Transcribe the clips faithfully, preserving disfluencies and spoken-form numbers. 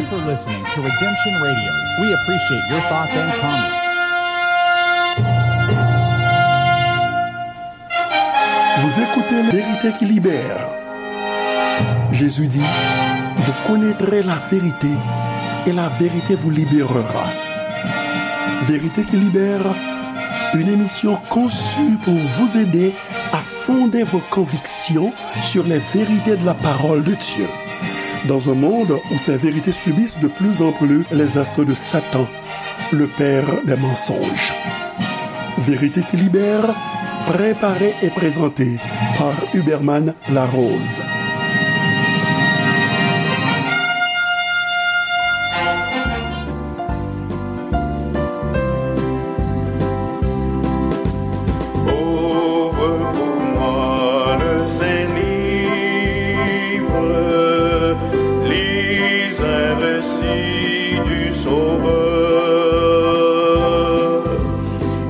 for listening to Redemption Radio. We appreciate your thoughts and comments. Vous écoutez La Vérité qui libère. Jésus dit, vous connaîtrez la vérité et la vérité vous libérera. Vérité qui libère, une émission conçue pour vous aider à fonder vos convictions sur les vérités de la parole de Dieu. Dans un monde où ces vérités subissent de plus en plus les assauts de Satan, le père des mensonges. Vérité qui libère, préparée et présentée par Huberman Larose. Ouvre pour moi le saint livre, lis un récit du Sauveur.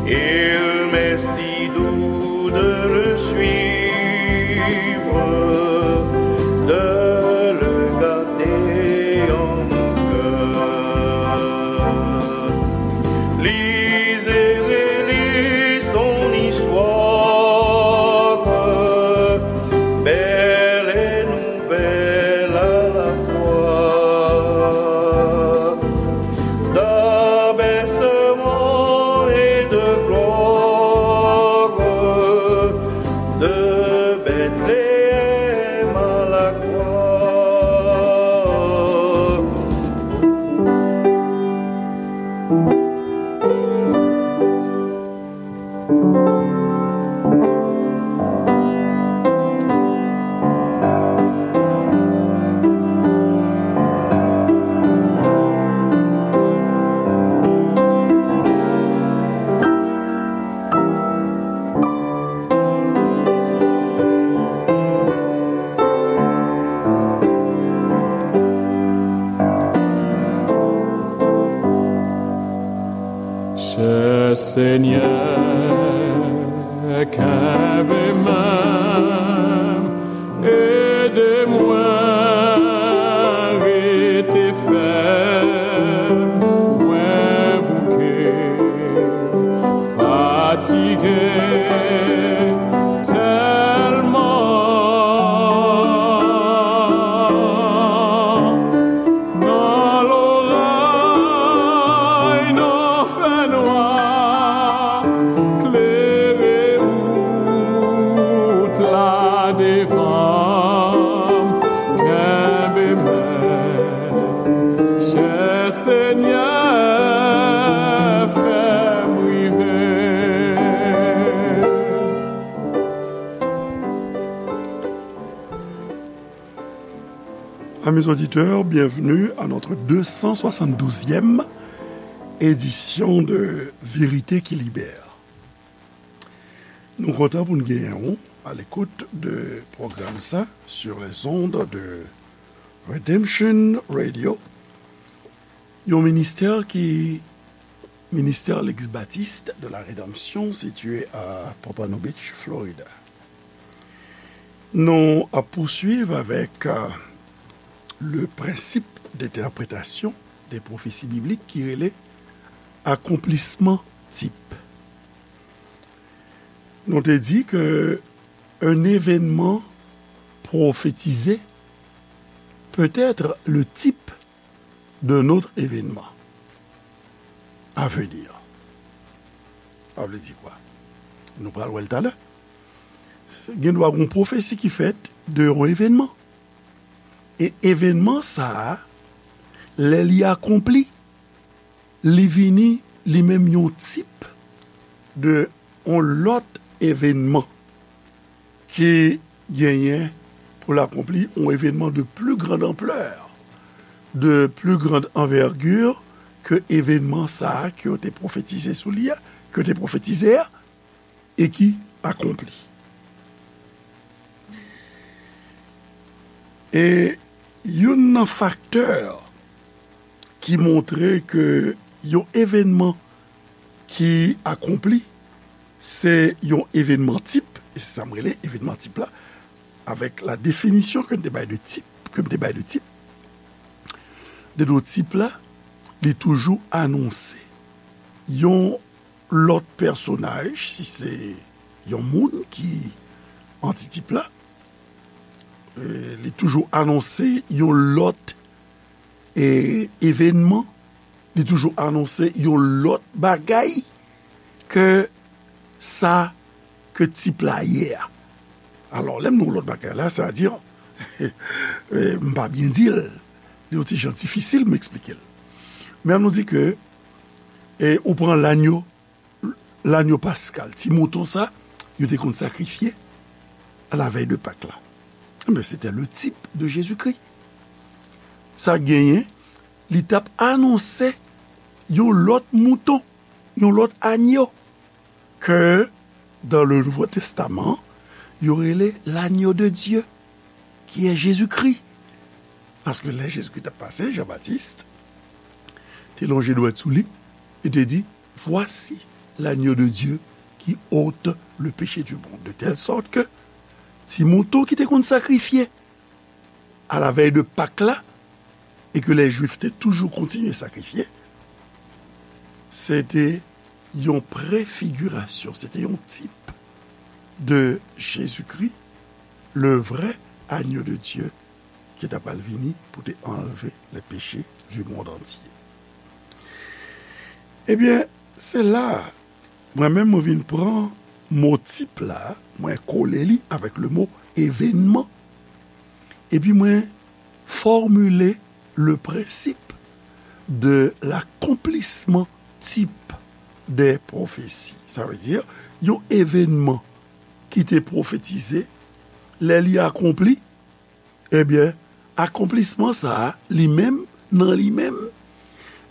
Il m'est si doux de le suivre, de le garder en mon cœur. Lis et relis son histoire, belle et nouvelle à la fois, d'abaissement et de gloire, de Bethléem à la croix. Chè Senyè, kenbe men m, ede mwen rete fèm, mwen bouke, fatige tèlman. Nan loray, nan fènwa, klere wout la devan m, kenbe men, chè Senyè, fè m rive. Amis auditeurs, bienvenue à notre deux cent soixante-douzième édition de Vérité qui libère. Nou kontan pou n genyen w à l'écoute de pwogram sa sur les ondes de Redemption Radio, yon ministè ki Ministère l'Église Baptiste de la Rédemption, situé à Pompano Beach, Florida. Nou ap pouswiv avèk, euh, le principe d'interprétation des prophéties bibliques ki rele akonplisman tip. Nou te di ke un événement prophétisé peut être le type d'un autre événement à venir. Sa vle di kwa? Nou pral wè l talè. Gen dwa gen yon pwofesi ki fèt de yon evènman. E evènman sa a, lè li akonpli, li vini li menm yon tip de yon lòt evènman ki genyen pou l akonpli, yon evènman de plus grande ampleur, de plus grande envergure ke evènman sa a ke yo te pwofetize sou li a, ke yo te pwofetize a, e ki akonpli. E youn nan faktè ki montre ke yon evènman ki akonpli, se yon evènman tip, e se sa m rele evènman tip la, avèk la definisyon ke m te bay de tip, ke m te bay de tip. de do tip la, li toujou anonse yon lòt pèsonaj, si se yon moun ki antitip la, e, li toujou anonse yon lòt, e, evènman, li toujou anonse yon lòt bagay ke sa ke tip la ye a. Alò, lè m di yon lòt bagay la, sa di, e, m pa byen di l, li yon ti jan difisil m eksplike l. Men an nou di ke, e, ou pran lanyo, lanyo paskal, ti mouton sa, yo te konn sakrifye à la veille de Pâques la. Enben, se te le type de Jésus-Christ. Sa genyen, li t ap anonse yon lòt mouton, yon lòt anyo, ke dans le Nouveau Testament, yo rele l'agneau de Dieu, qui est Jésus-Christ. Paske lè Jezikri t ap pase, Jan Batis te lonje dwèt sou li e te di, Voici l'agneau de Dieu qui ôte le péché du monde. De telle sorte que ti mouton ki te konn sakrifye à la veille de Pâques la, e ke lè Jwif te toujou kontinye sakrifye, se te yon prefigirasyon, se te yon tip de Jezikri, le vrai agneau de Dieu, ki ta pral vini pou te anlve le péché du monde entier. Ebyen, se la, mwen menm, mwen vin pran mo tip la, mwen kole li avèk le mo evènman, epi mwen fòmile le principe de l'accomplissement type des prophéties. Sa vle di, yon evènman ki te pwofetize, lè li akonpli, ebyen, akonplisman sa a, li menm, nan li menm,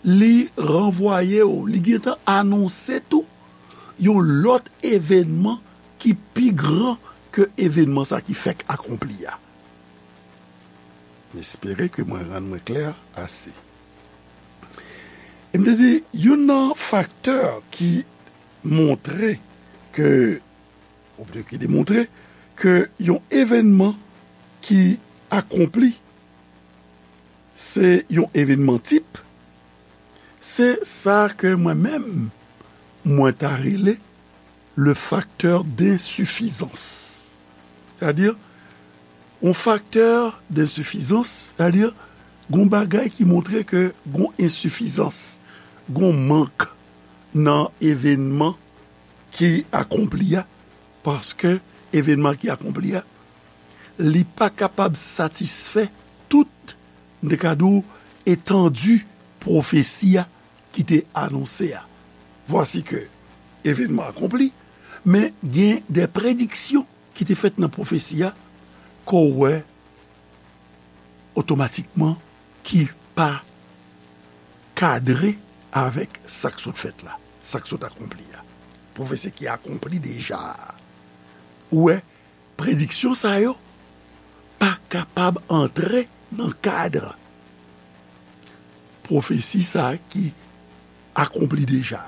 li ranvwaye w, li gentan anonse tou yon lòt evènman ki pi gran ke evènman sa ki fèk akonpli a. M espere ke mwen rann mwen klè ase. E m te di, youn nan faktè ki montre ke, oubyen ki demontre ke yon evènman ki akonpli, se yon evènman tip, se sa ke mwen menm, mwen ta rele le facteur d'insuffisance. Sètadi, yon faktè densifizans, sètadi, gon bagay ki montre ke gon ensifizans, gon mank nan evènman ki akonpli a, paske evènman ki akonpli a, li pa kapab satisfè tout, m te ka di w, etandi pwofesi a ki te anonse a. Vwasi ke evènman akonpli, men gen de prediksyon ki te fèt nan pwofesi a, ke w wè otomatikman ki pa kadre avèk sa k sot fèt la, sa k sot akonpli a. Pwofesi ki akonpli deja a. Ou wè, prediksyon sa yo pa kapab antre nan kad pwofesi sa ki akonpli deja.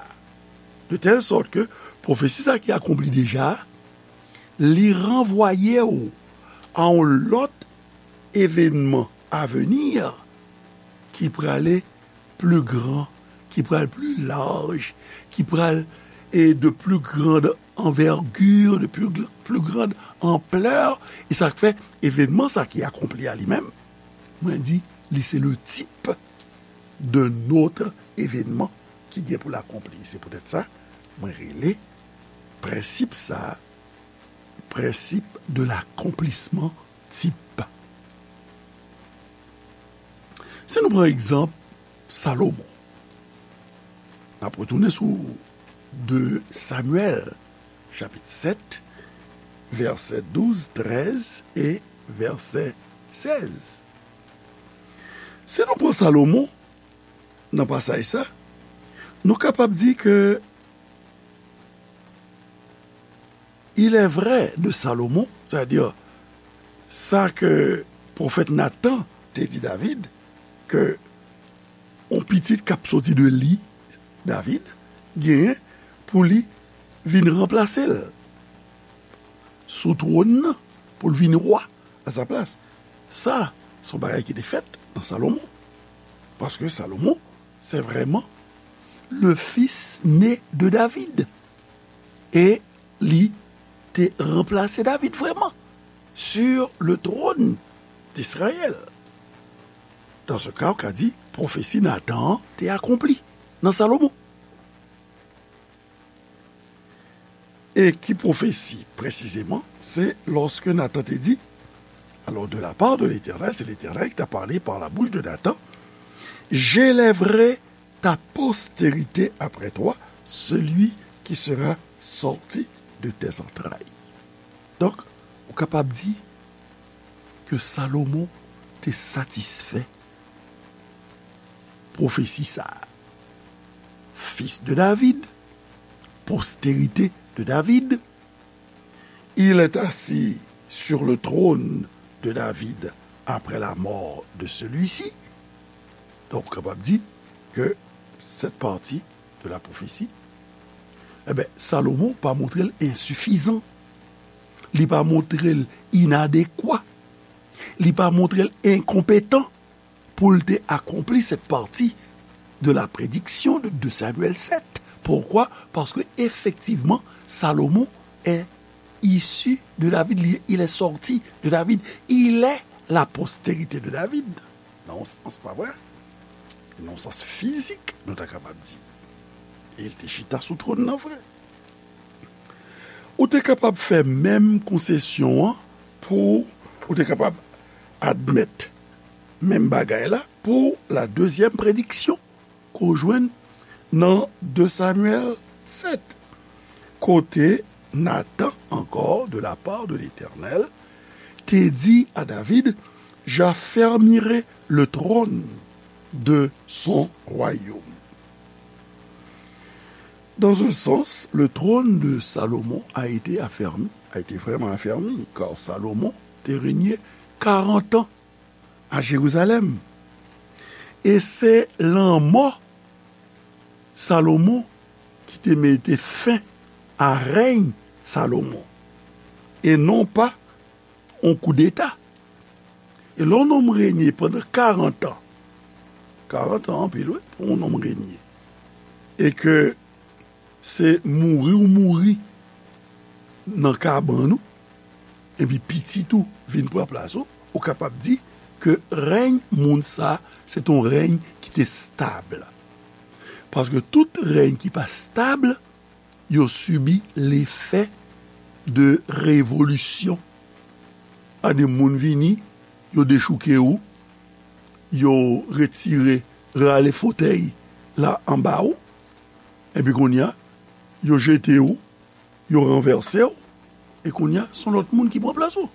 De tèl sòt ke pwofesi sa ki akonpli deja, li ranvwaye w a yon lòt evènman aveni ki prale pli gran, ki pral pli laj, ki pral, e, de pli grand anvègir, de pli gr-, pli grand anplè, e sa k fè evènman sa ki akonpli a li menm, mwen di, li se le type d'un autre événement ki gen pou l akonpli. Se poutèt sa, mwen rele prensip sa, principe de l'accomplissement type. Si nou pran egzanp Salomon, n ap retounen sou de Samyèl, chapit sèt, vèsè douz, trèz e vèsè sèz. Si nou pran Salomon nan pasaj sa, nou kapab di ke il est vrai de Salomon, sètadi sa ke pwofèt Natan te di David, ke yon pitit k ap soti de li, David, genyen pou li vin ranplase l sou twòn nan, pou l vin wa a sa plas. Sa, se yon bagay ki te fèt nan Salomon. Paske Salomon, c'est vraiment le fils né de David. E li te ranplase David vrèman sur le trône d'Israël. Dans ce cas, ou ka di, pwofesi Natan an te akonpli nan Salomon. E ki pwofesi, presizeman? Se lòske Natan te di, alors de la part de l'Éternel, c'est l'Éternel qui t'a parlé par la bouche de Nathan, j'élèverai ta postérité après toi, celui qui sera sorti de tes entrailles. Donk, ou kapab di ke Salomon te satisfè pwofesi sa a. Fils de David, postérité de David, il est assis sur le trône de David après la mort de celui-ci. Donk, ou kapab di ke cette partie de la prophétie, e ben, Salomon pa montre l ensifizan. Li pa montre l inadekwa. Li pa montre l enkonpetan pou l te akonpli cette partie de la prédiction de deux Samuel sept. Pourquoi? Parce que, effectivement, Salomon est issu de David, il, il est sorti de David, il est la postérité de David. Nan yon sans, pa vre? Nan yon sans fizik, nou ta kapab di. E l te chita sou twòn nan vre. Ou te kapab fè menm konsesyon an pou, ou te kapab admèt menm bagay la pou la dezyèm prediksyon ke w jwenn nan de Samyèl sèt, kote Natan, encore de la part de l'Éternel, te di a David, j'affermirai le trône de son royaume. Dans un sens, le trône de Salomon a été affermi, a été vraiment affermi, car Salomon te régné quarante ans à Jérusalem. E se lanmò Salomon ki te mete fen a rèy Salomon, e non pa yon koudeta. E lè yon nonm renye pandan karant an, karant an anpil, wi, pou yon nonm renye, e ke se mouri ou mouri nan kabann ou, epi pitit ou vin pran plas ou, ou kapab di ke rèy moun sa, se te yon rèy ki te stab. Paske tout rèy ki pa stab, yo sibi lefè de revolisyon. Ade moun vini, yo dechouke ou, yo retire, rale fotèy la anba ou, epi kounye a, yo jete ou, yo ranvèse w, e kounye a, se yon lòt moun ki pran plas ou.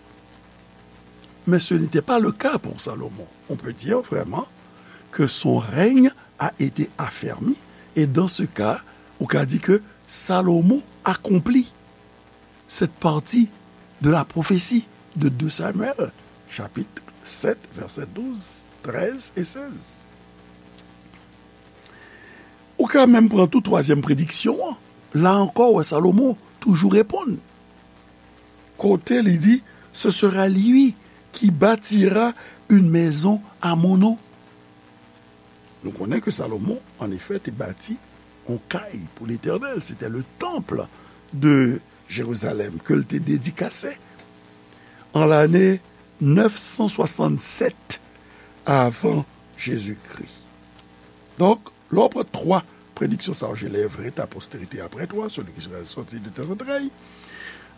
Mais ce n'était pas le cas pour Salomon. On peut dire vraiment que son règne a été affermi, et dans ce cas, ou ka di ke Salomon akonpli cette partie de la prophétie de deux Samuel, chapitre sept, versets douze, treize et seize. Ou ka menm pran tou twazyèm prediksyon an. La ankò, w wè Salomon toujou reponn. Kote li di, ce sera lui qui bâtira une maison à mon nom. Nou konnen ke Salomon, an efè, te bati yon kay pou Letènèl. C'était le temple de Jérusalem ke l te dedikase an lane nèf san swasannsèt avan Jezikri. Donk, lè w pran twa prediksyon sa yo, j'élèverai ta postérité après toi, celui qui sera sorti de tes entrailles.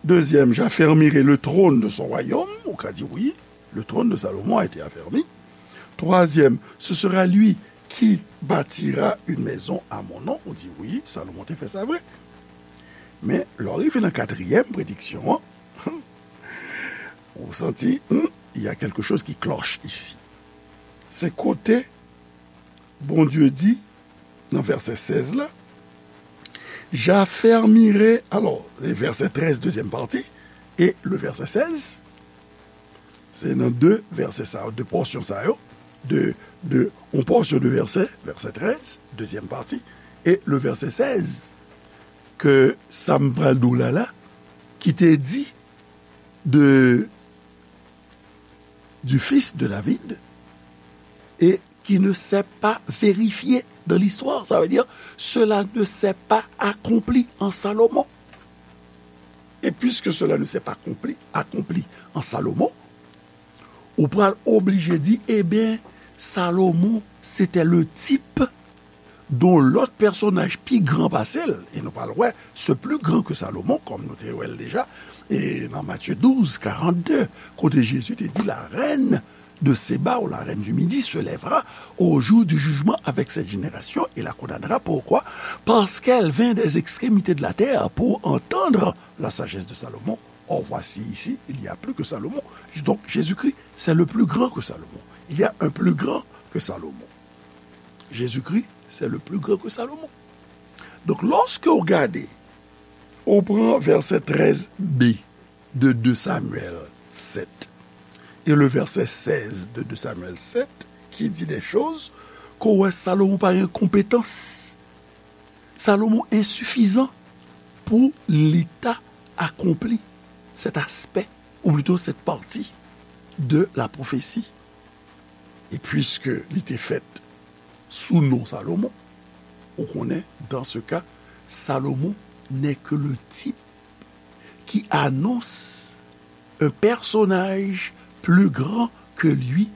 Deuxième, j'affermirai le trône de son royaume. Ou ka di wi, le trône de Salomon a été affermi. Troisième, ce sera lui qui bâtira une maison à mon nom. Ou di wi, Salomon te fè sa vre. Men, lè w rive nan katriyèm prediksyon an, ou santi, hmm, il y a quelque chose qui cloche ici. Se kote Bondye di, nan vèsè sèz la, j'affermirai, alors, vèsè trèz, dezyèm pati, e le vèsè sèz, se nan de vèsè sa yo, de pòsyon sa yo, de, de, yon pòsyon de vèsè, vèsè trèz, dezyèm pati, e le vèsè sèz, ke sa m pral di w la la, ki te di de, du fils de David, e qui ne s'est pas vérifié dans l'histoire. Ça veut dire, cela ne s'est pas accompli en Salomon. Et puisque cela ne s'est pas accompli, accompli en Salomon, ou pral oblije di, ebyen, Salomon, c'était le type dont l'autre personnage pi gran pase l, e nou pral wè, ce plus grand que Salomon, kòm nou te wè l deja, e nan Matthieu douze, quarante-deux, kote Jezi te di, la reine de Séba ou la reine du Midi se lèvera au jour du jugement avec cette génération et la condamnera. Pourquoi? Parce qu'elle vint des extrémités de la terre pour entendre la sagesse de Salomon. Or, voici ici, il y a plus que Salomon. Donc, Jésus-Christ, c'est le plus grand que Salomon. Il y a un plus grand que Salomon. Jésus-Christ, c'est le plus grand que Salomon. Donc, lorsque vous regardez, on prend verset treize b de deux Samuel sept et le verset seize de deux Samuel sept, qui dit des choses qu'on voit Salomon par incompétence. Salomon insuffisant pour l'État accompli, cet aspect, ou plutôt cette partie de la prophétie. Et puisque li te fèt sou non Salomon, ou konnen, dans ce cas, Salomon n'est que le type qui annonce un personnage plus grand que lui,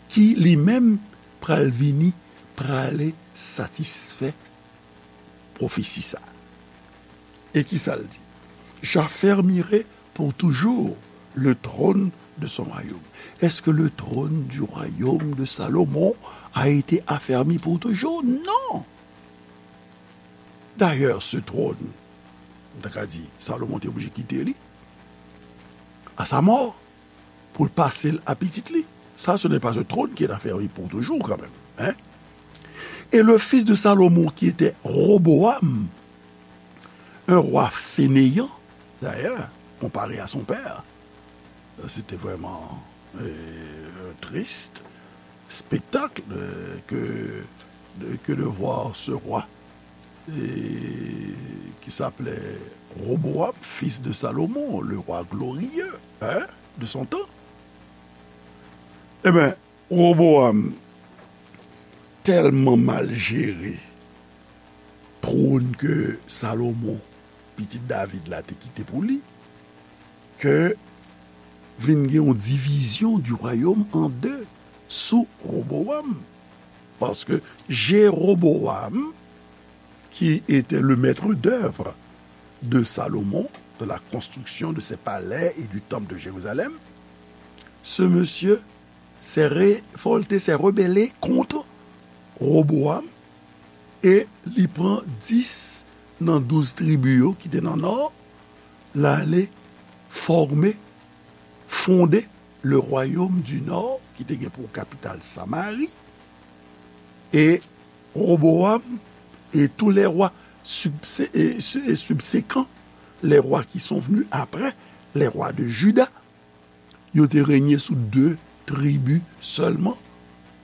qui lui-même pral vini, prale satisfè pwofesi sa. E ki sa l di? J'affermirai pour toujours le trône de son royaume. Est-ce que le trône du royaume de Salomon a été affermi pour toujours? Non. D'ailleurs, ce trône, m ta ka di, Salomon te oblije kite li à sa mort pour passer à pitit li. Ça, ce n'est pas un trône qui est affermi pour toujours quand même. Hein? Et le fils de Salomon, qui était Roboam, un roi fainéant, d'ailleurs, comparé à son père, c'était vraiment euh, un triste spectacle euh, que, de, que de voir ce roi et qui s'appelait Roboam, fils de Salomon, le roi glorieux hein, de son temps. Eh bien, Roboam tèlman mal jere twòn ke Salomon, pitit David la, te kite pou li, ke vin gen yon divizyon du royaume en deux sous Roboam. Parce que Jéroboam, qui était le maître d'œuvre de Salomon, de la construction de ses palais et du temple de Jérusalem, ce monsieur s'est révolté, s'est rebellé contre Roboam e li pran dis nan douz tribi yo ki te nan nò, l ale fòme, fonde le royaume du nord ki te gen pou kapital Samari. Et Roboam et tous les rois subséquents, les rois qui sont venus après, les rois de Juda, yo te renye sou de tribi sèlman,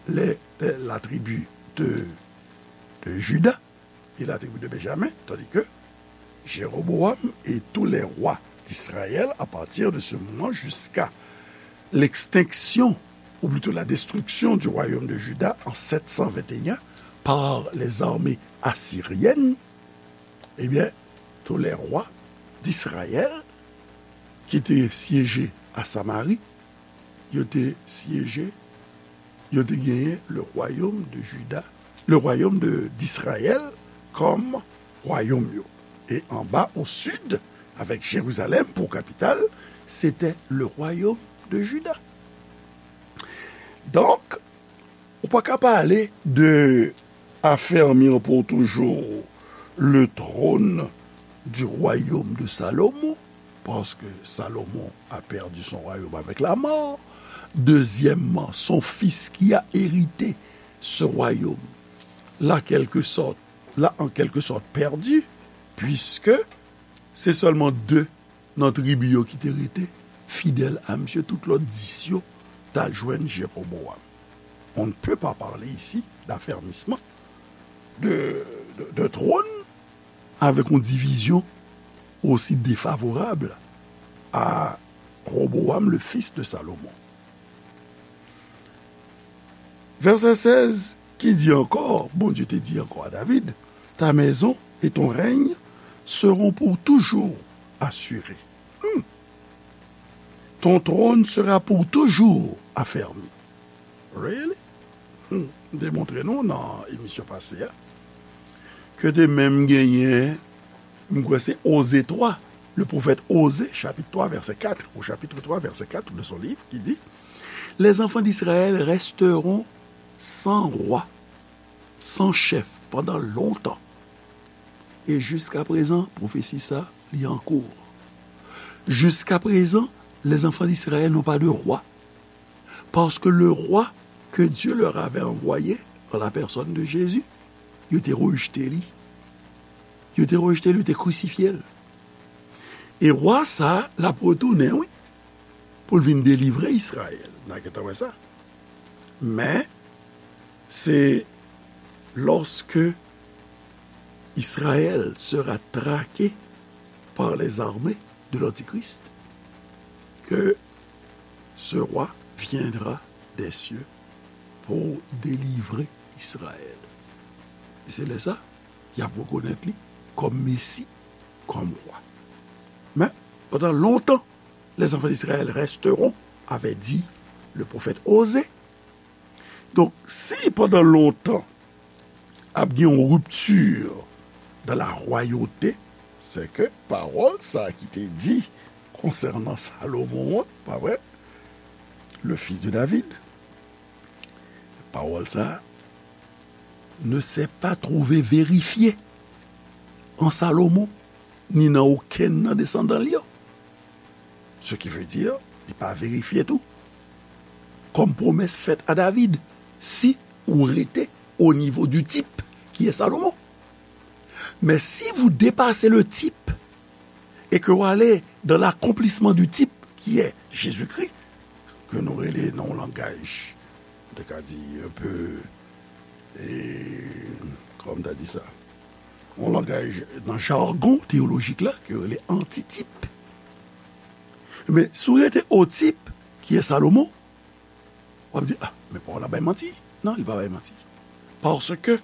la tribi de, de Juda et la tribu de Benjamin, tandis que Jéroboam et tous les rois d'Israël, à partir de ce moment jusqu'à l'extinction, ou plutôt la destruction du royaume de Juda en sept cent vingt et un par les armées assyriennes, eh bien, tous les rois d'Israël qui étaient siégés à Samarie, ils étaient siégés, ils étaient gagnés le royaume de Juda, le royaume de, d'Israël comme royaume. Et en bas au sud, avec Jérusalem pour capitale, c'était le royaume de Juda. Donc, ou pa ka pale de affermir pour toujours le trône du royaume de Salomon, parce que Salomon a perdu son royaume avec la mort. Deuxièmement, son fils qui a hérité ce royaume l'a quelque sorte, l'a en quelque sorte perdu, puisque c'est seulement deux nan tribi yo ki te rete fidèl a misye, tout lòt dis yo t al jwenn Jeroboam. On ne peut pas parler ici d'affermissement de, de, de trône avec une division aussi défavorable à Roboam, le fils de Salomon. Vèsè sèz ki di ankò, Bondye te di ankò a David, ta maison et ton règne seront pour toujours assurés. Hmm. Ton trône sera pour toujours affermi. Really? Hmm. M te montre nou nan emisyon pase a ke te menm genyen, m kwè se Oze twa, le pwofèt Oze, chapit twa, vèsè kat, au chapitre trois, verset quatre de son livre, qui dit, Les enfants d'Israël resteront sans roi, sans chef pendant longtemps. E jiska prezan, pwofesi sa, li an kou. Jiska prezan, les enfants d'Israël n'ont pas de roi. Parce que le roi que Dieu leur avait envoyé, en la personne de Jésus, yo te rejte li. Yo te rejte li, yo te krisifye l. E wa sa a, l ap retounen, wi, pou l vin delivre Izrayèl. N a gentan wè sa. Men, se lorsque Israël sera traqué par les armées de l'Antichrist que ce roi viendra des cieux pour délivrer Israël. E se lè sa, y ap rekonèt li kòm Mesi, kòm wa. Men, pandan lontan, les enfants d'Israël resteront, avait dit le prophète Osée. Donk, si pandan lontan ap gen yon ripti dan la rwayòte, se ke pawòl sa a ki te di konsènan Salomon an, pa vre? Le fils de David, pawòl sa a ne s'est pas trouvé vérifié an Salomon, ni nan okenn nan desandan li yo. Ce qui veut dire, li pa verifye tou. Kòm pwomès fèt a David, si ou rete au niveau du type qui est Salomon. Mais si vous dépassez le type et que vous allez dans l'accomplissement du type qui est Jésus-Christ, ke nou rele nan yon langaj, m te ka di, un peu, e, kòman m ta di sa? Yon langaj nan jagon teyolojik la, ke yo rele antitip. Men, si w rete o tip, ki e Salomon, w ap di, ah, men pawòl la bay manti. Non, li pa bay manti. Parce que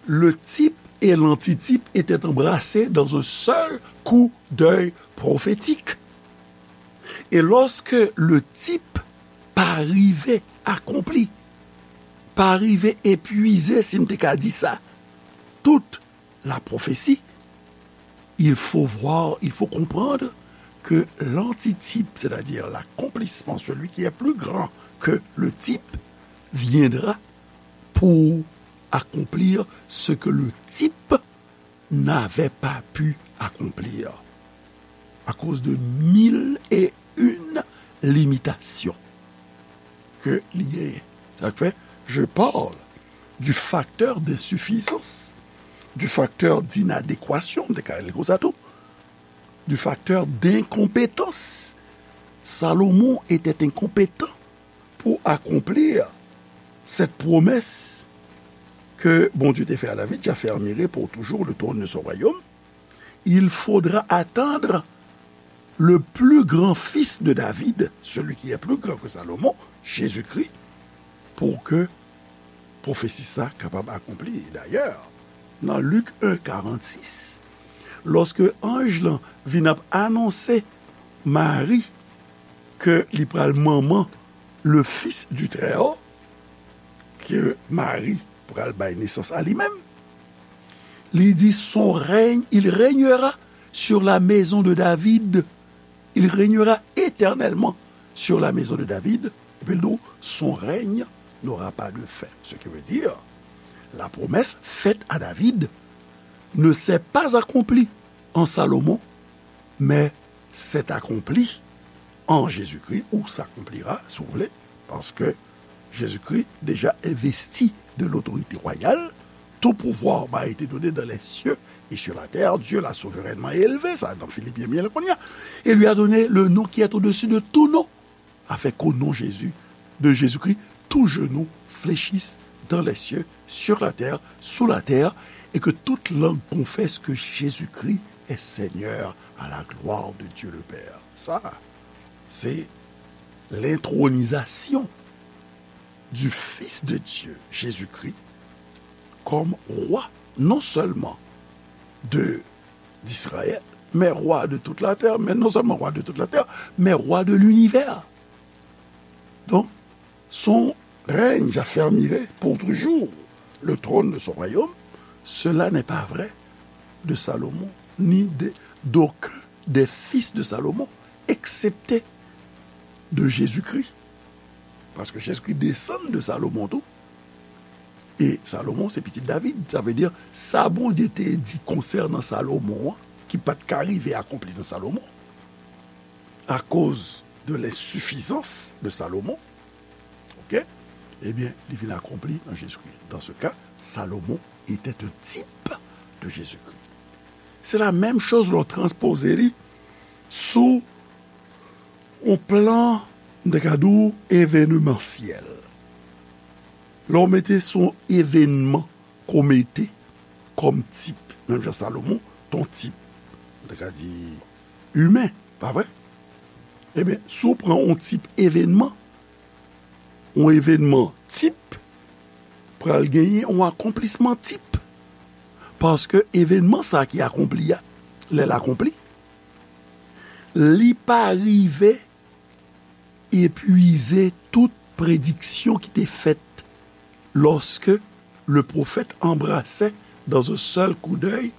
le type et l'antitype étaient embrassés dans un seul coup d'œil prophétique. Et lorsque le type pa rive akonpli, pa rive epuize, si m te ka di sa, tout la prophétie, il faut voir, il faut comprendre que l'antitype, c'est-à-dire l'accomplissement, celui qui est plus grand que le type, viendra pour accomplir ce que le type n'avait pas pu accomplir à cause de mille et une limitations ke li genyen. Sa k fè, je parle du facteur d'insuffisance, du facteur d'inadéquation, m te ka rele l konsa tou, du facteur d'incompétence. Salomon était incompétent pour accomplir cette promesse que Bondye te fè a David, j'affermirai pour toujours le trône de son royaume. Il faudra attendre le plus grand fils de David, celui qui est plus grand que Salomon, Jésus-Christ, pour que pwofesi sa kapab akonpli. Dayè, nan Lik en karannsis, lòske anj lan vin ap anonse Mari ke li pral manman le Fils du Très-Haut, ke Mari pral bay nesans a li menm, li di, son règne, il régnera sur la maison de David, il régnera éternellement sur la maison de David, epi l di w, son règne n'aura pas de fin. Ce qui veut dire, la promesse faite à David ne s'est pas accomplie en Salomon, mais s'est accomplie en Jésus-Christ, ou s'accomplira, si vous voulez, parce que Jésus-Christ déjà investi de l'autorité royale, tout pouvoir m'a été donné dans les cieux et sur la terre. Dieu l'a souverainement élevé, sa nan Filipyen byen kounye a, et lui a donné le nom qui est au-dessus de tout nom, afin qu'au nom Jésus, de Jésus-Christ, tout genou fléchisse dans les cieux, sur la terre, sous la terre, et que toute langue confesse que Jésus-Christ est Seigneur à la gloire de Dieu le Père. Sa, se lentwonizasyon du Fils de Dieu, Jésus-Christ, comme roi, non seulement de, d'Israël, mais roi de toute la terre, mais non seulement roi de toute la terre, mais roi de l'univers. Donc, son règne affermirait pour toujours le trône de son royaume. Cela n'est pas vrai de Salomon, ni de, d'aucun des fils de Salomon, excepté de Jésus-Christ. Paske Jezikri desann de Salomon tou. E Salomon se pitit David. Sa vle di, sa Bondye te di konsènan Salomon an, ki pa t ka rive akonpli nan Salomon, akoz de lensifizans de Salomon, ok, ebyen, li vin akonpli nan Jezikri. Dans ce cas, Salomon était un type de Jésus-Christ. Se la menm choz lè w transpoze li sou yon plan, m te ka di w, evenemansyèl. Lè w mete sou yon evenman ke w mete kòm tip, menm jan Salomon, t on tip, m te ka di, imen, pa vre? Ebyen, si w pran yon tip evenman, yon evenman tip pral genyen yon akonplisman tip. Paske evenman sa ki akonpli a, lè l akonpli, li pa rive epwize tout prediksyon ki te fèt lorsque le prophète embrassait dans un seul coup d'œil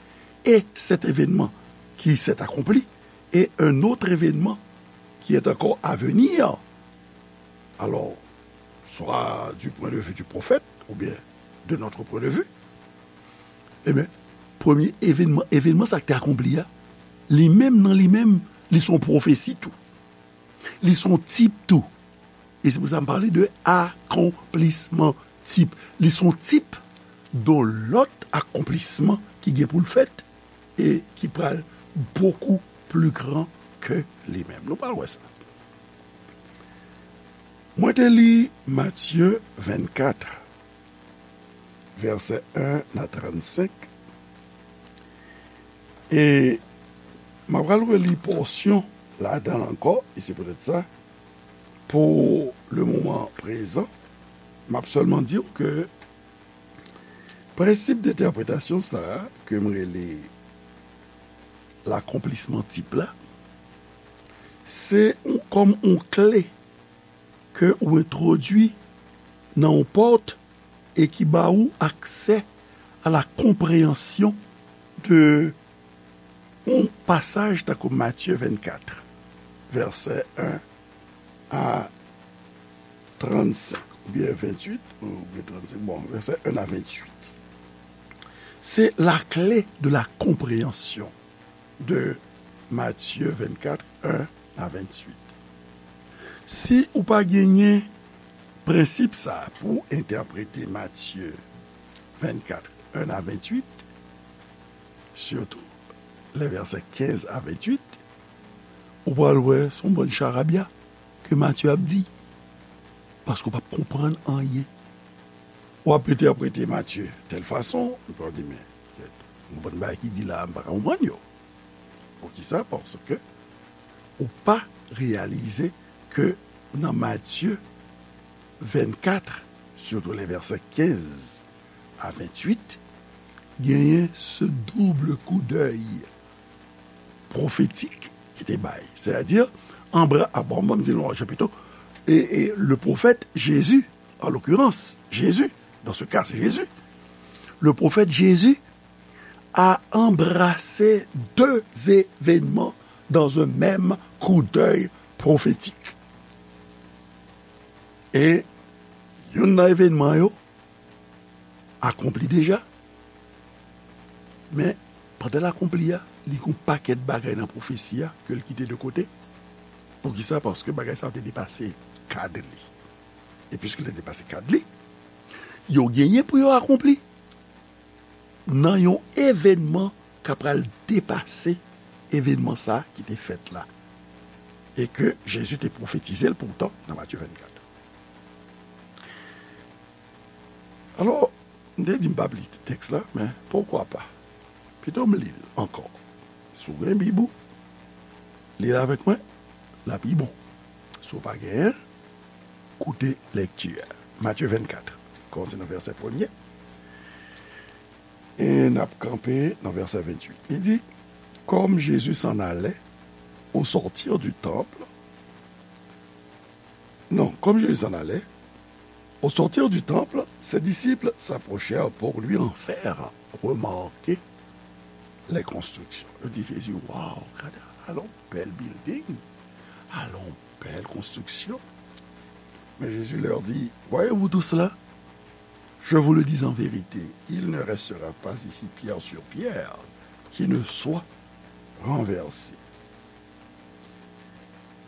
et cet événement qui s'est accompli et un autre événement qui est encore à venir. Alors, soit du point de vue du prophète, ou bien de notre point de vue, ebyen, premye evenman, evenman sa ki te akonpli a, li menm nan li menm, li se yon pwofesi tou. Li se yon tip tou. E se pou sa m pale de akonplisman tip. Li se yon tip de lòt akonplisman ki gen pou l fèt e ki pral bokou pli gran ke li menm. Nou pral wè sa. Mwen te li Matye vennkat, vèsè en a trannsenk. E m ap pral reli pòsyon ladan l ankò, e se poutèt sa, pou le moman prezan, m ap sèlman di w ke prensip de entèpretasyon sa a, ke m rele lakonplisman tip la, se yon, kòm yon kle ke ou entwodui nan yon pòt e ki ba ou aksè a la konpreyansyon de yon pasaj tankou Matye vennkat, vèsè en a trannsenk, oubyen venntuit, oubyen trannsenk, bon, vèsè en a venntuit. Se la clé de la compréhension de Matthieu vingt-quatre, un à vingt-huit. Si ou pa genyen prensip sa a pou entèprete Matye vennkat, en a venntuit, sitou lè vèsè kenz a venntuit, ou pral wè se yon bann charabya ke Matye ap di, paske w p ap konprann anyen. W ap entèprete Matye tèl fason, epi w ap di, men, tèt, yon bann bagay ki di la a, m pa ka konprann yo. Poukisa? Paske ou pa reyalize ke nan Matye vennkat, sitou lè vèsè kenz a venntuit, genyen se double coup d'œil pwofetik ki te bay. Sètadi, anbra, a, bon, ban m di l yon jan pito, e, e le prophète Jésus, en l'occurrence, Jésus, dans ce cas, c'est Jésus, le prophète Jésus a embrassé deux événements dans un même coup d'œil prophétique. E youn nan evènman yo akonpli deja, men pandan l akonpli a, li gen yon pakèt bagay nan pwofesi a ke l kite de kote. Poukisa? Paske bagay sa yo te depase kad li. E piske l te depase kad li, yo genyen pou yo akonpli nan yon evènman k ap pral depase evènman sa a ki te fèt la, e ke Jezi te pwofetize l poutan nan Matye vennkat. Alò, m te di m p ap li tèks la, men poukwa pa? Pito m li l ankò. Si w gen Bib ou, li l avèk mwen, l ap pi bon. Si w pa genyen l, koute lèkti a. Matye vennkat, kòmanse nan vèsè premye, e n ap kanpe nan vèsè venntuit. Li di, Comme Jésus s'en allait, au sortir du temple, non, comme Jésus s'en allait, au sortir du temple, ses disciples s'approchèrent pour lui en faire remarquer les constructions. Yo di Jezi, waw, gade, alon bèl building, alon bèl konstriksyon. Mais Jésus leur dit, voyez-vous tout cela? Je vous le dis en vérité, il ne restera pas ici pierre sur pierre qui ne soit renversée.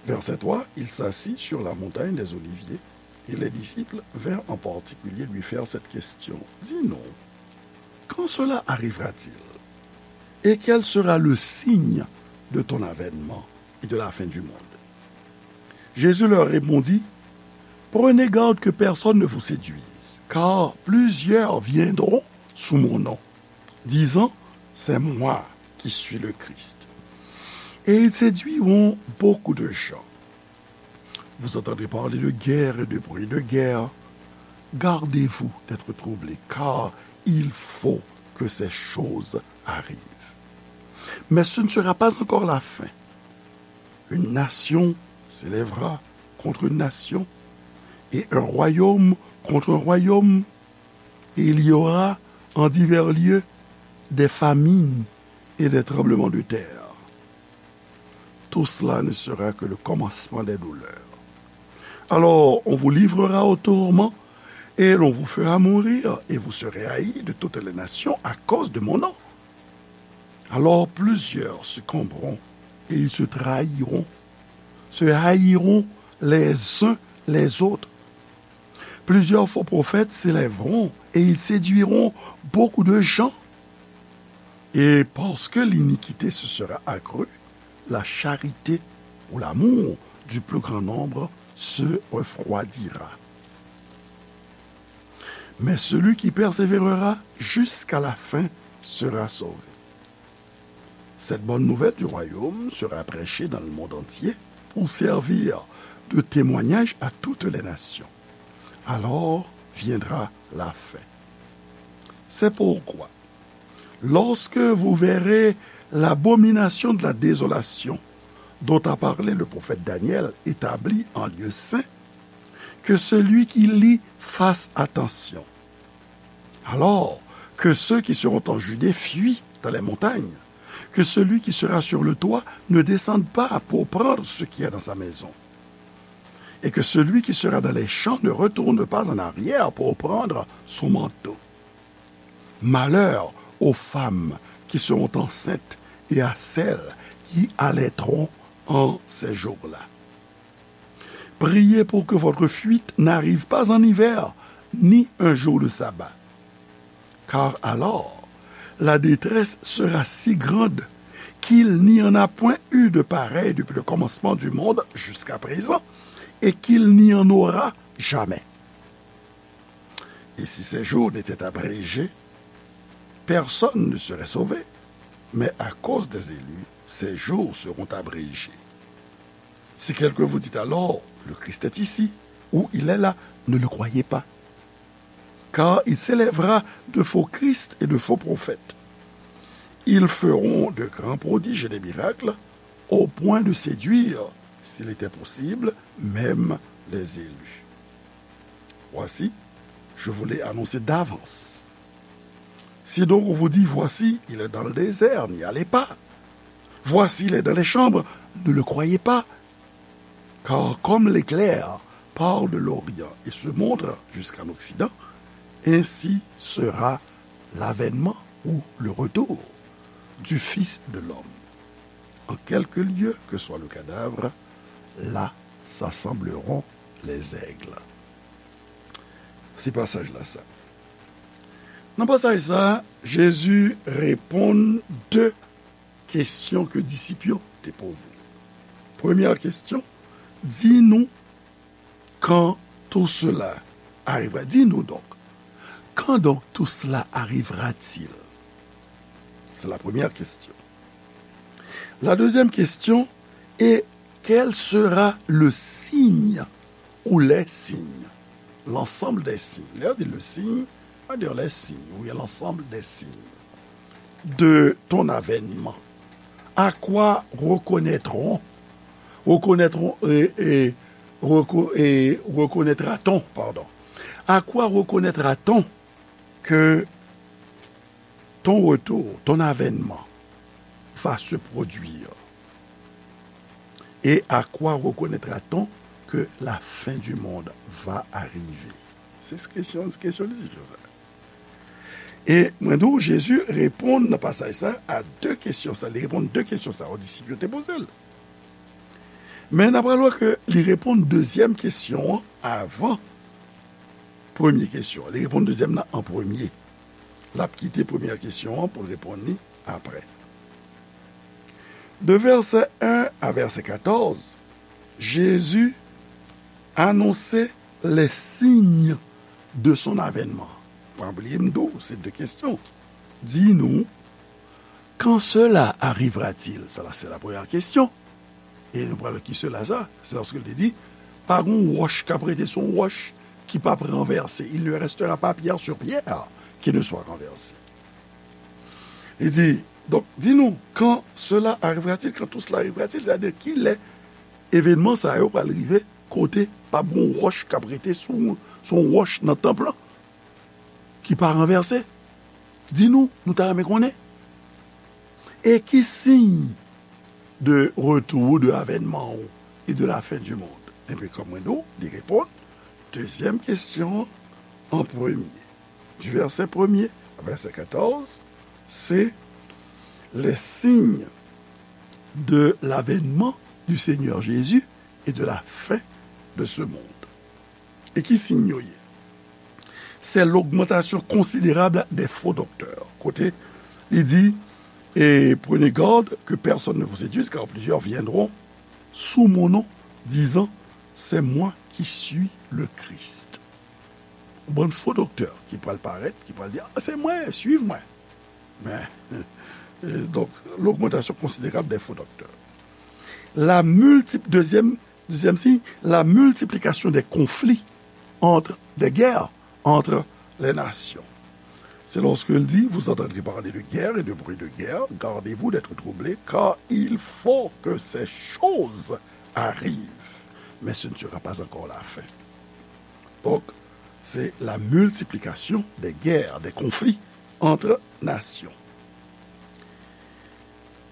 Verset trois, il s'assit sur la montagne des Oliviers et les disciples vinrent en particulier lui faire cette question. Dis-nous, quand cela arrivera-t-il? Et quel sera le signe de ton avènement et de la fin du monde? Jésus leur répondit, prenez garde que personne ne vous séduise, car plusieurs viendront sous mon nom, disant, c'est moi qui suis le Christ. Et ils séduiront beaucoup de gens. Vous entendrez parler de guerre et de bruit de guerre. Gardez-vous d'être troublés, car il faut que ces choses arrivent. Mais ce ne sera pas encore la fin. Une nation s'élèvera contre une nation, et un royaume contre un royaume, et il y aura en divers lieux des famines et des tremblements de terre. Tout cela ne sera que le commencement des douleurs. Alors, on vous livrera au tourment, et l'on vous fera mourir, et vous serez haïs de toutes les nations à cause de mon nom. Alors plusieurs succomberont, et ils se trahiront, se haïront les uns les autres. Plusieurs faux prophètes s'élèveront, et ils séduiront beaucoup de gens. Et parce que l'iniquité se sera accrue, la charité ou l'amour du plus grand nombre se refroidira. Mais celui qui persévérera jusqu'à la fin sera sauvé. Cette bonne nouvelle du royaume sera prêchée dans le monde entier pour servir de témoignage à toutes les nations. Alors viendra la fin. C'est pourquoi, lorsque vous verrez l'abomination de la désolation dont a parlé le prophète Daniel établie en lieu saint, que celui qui lit fasse attention. Alors que ceux qui seront en Judée fuient dans les montagnes, que celui qui sera sur le toit ne descende pas pour prendre ce qui est dans sa maison, et que celui qui sera dans les champs ne retourne pas en arrière pour prendre son manteau. Malheur aux femmes qui seront enceintes et à celles qui allaiteront en ces jours-là. Priez pour que votre fuite n'arrive pas en hiver, ni un jour de sabbat. Car alors, la détresse sera si grande qu'il n'y en a point eu de pareil depuis le commencement du monde jusqu'à présent, et qu'il n'y en aura jamais. Et si ces jours n'étaient abrégés, personne ne serait sauvé. Mais à cause des élus, ces jours seront abrégés. Si quelqu'un vous dit alors, le Christ est ici, ou il est là, ne le croyez pas. Car il s'élèvera de faux Christ et de faux prophètes. Ils feront de grands prodiges et des miracles, au point de séduire, s'il était possible, même les élus. Voici, je vous l'ai annoncé d'avance. Si donc on vous dit, voici, il est dans le désert, n'y allez pas. Voici, il est dans les chambres, ne le croyez pas. Car comme l'éclair part de l'Orient et se montre jusqu'en Occident, ainsi sera l'avènement ou le retour du Fils de l'homme. En quelque lieu que soit le cadavre, là s'assembleront les aigles. Se pasaj la sa. Nan pasaj sa, Jezi reponn de kesyon ke disip yo te poze. Premyè kesyon, di nou quand tout cela arrivera. Dis-nous donc, quand donc tout cela arrivera-t-il? C'est la première question. La deuxième question est, quel sera le signe ou les signes? l'ensemble des signes. Lè yo di le signe, ça veut dire les signes, ou bien l'ensemble des signes de ton avènement. À quoi reconnaîtront, reconnaîtront, et, et, reco- et reconnaîtra-t-on, pardon. À quoi reconnaîtra-t-on que ton retour, ton avènement va se produire? Et à quoi reconnaîtra-t-on que la fin du monde va arriver? Se kesyon, kesyon disip yo sa. E mwen di w, Jezi reponn nan pasaj sa a de kesyon sa. Li reponn de kesyon sa yo disip yo te poze l. Men n ap pral wè ke li reponn dezyèm kesyon an avan premye kesyon an. Li reponn dezyèm nan an premye. L ap kite premyè kesyon an pou l reponn li apre. De vèsè en a vèsè katòz, Jezi anonse les signes de son avènement. Pa bliye m di w, se de kesyon. Dis-nous, quand cela arrivera-t-il? Sa la, se la premyè kesyon. E nou pral ki cela sa? Se lòske l te di, pa gon wòch k ap rete sou yon wòch ki p ap ranvèse. Il ne restera pas pierre sur pierre qui ne soit renversée. Li di, donc, dis-nous, quand cela arrivera-t-il, quand tout cela arrivera-t-il, sa vle di ki lè evènman sa yo pral rive, kote p ap gon wòch k ap rete sou, sou yon wòch nan tanp lan ki pa ranvèse. Dis-nous, nou ta renmen konnen. E ki siy de retour, de avènman ou et de la fin du monde? Epi, kòm mwen di w, li reponn dezyèm kesyon an an premye. Du verset premier à verset quatorze, c'est les signes de l'avènement du Seigneur Jésus et de la fin de ce monde. E ki siy yo ye? C'est l'augmentation considérable des faux docteurs. Kote li di, et prenez garde que personne ne vous séduise, car plusieurs viendront sous mon nom, disant, c'est moi qui suis le Christ. Yon bann fo doktè ki pral parèt, ki pral di, ah, c'est moi, suivez-moi. Mais, euh, donc, l'augmentation considérable des faux docteurs. La multi- deuxième, deuxième signe, la multiplication des conflits entre, des guerres entre les nations. C'est lorsqu'il dit, vous entendrez parler de guerre et de bruit de guerre, gardez-vous d'être troublés, car il faut que ces choses arrivent, mais ce ne sera pas encore la fin. Donc, c'est la multiplication des guerres, des conflits entre nations.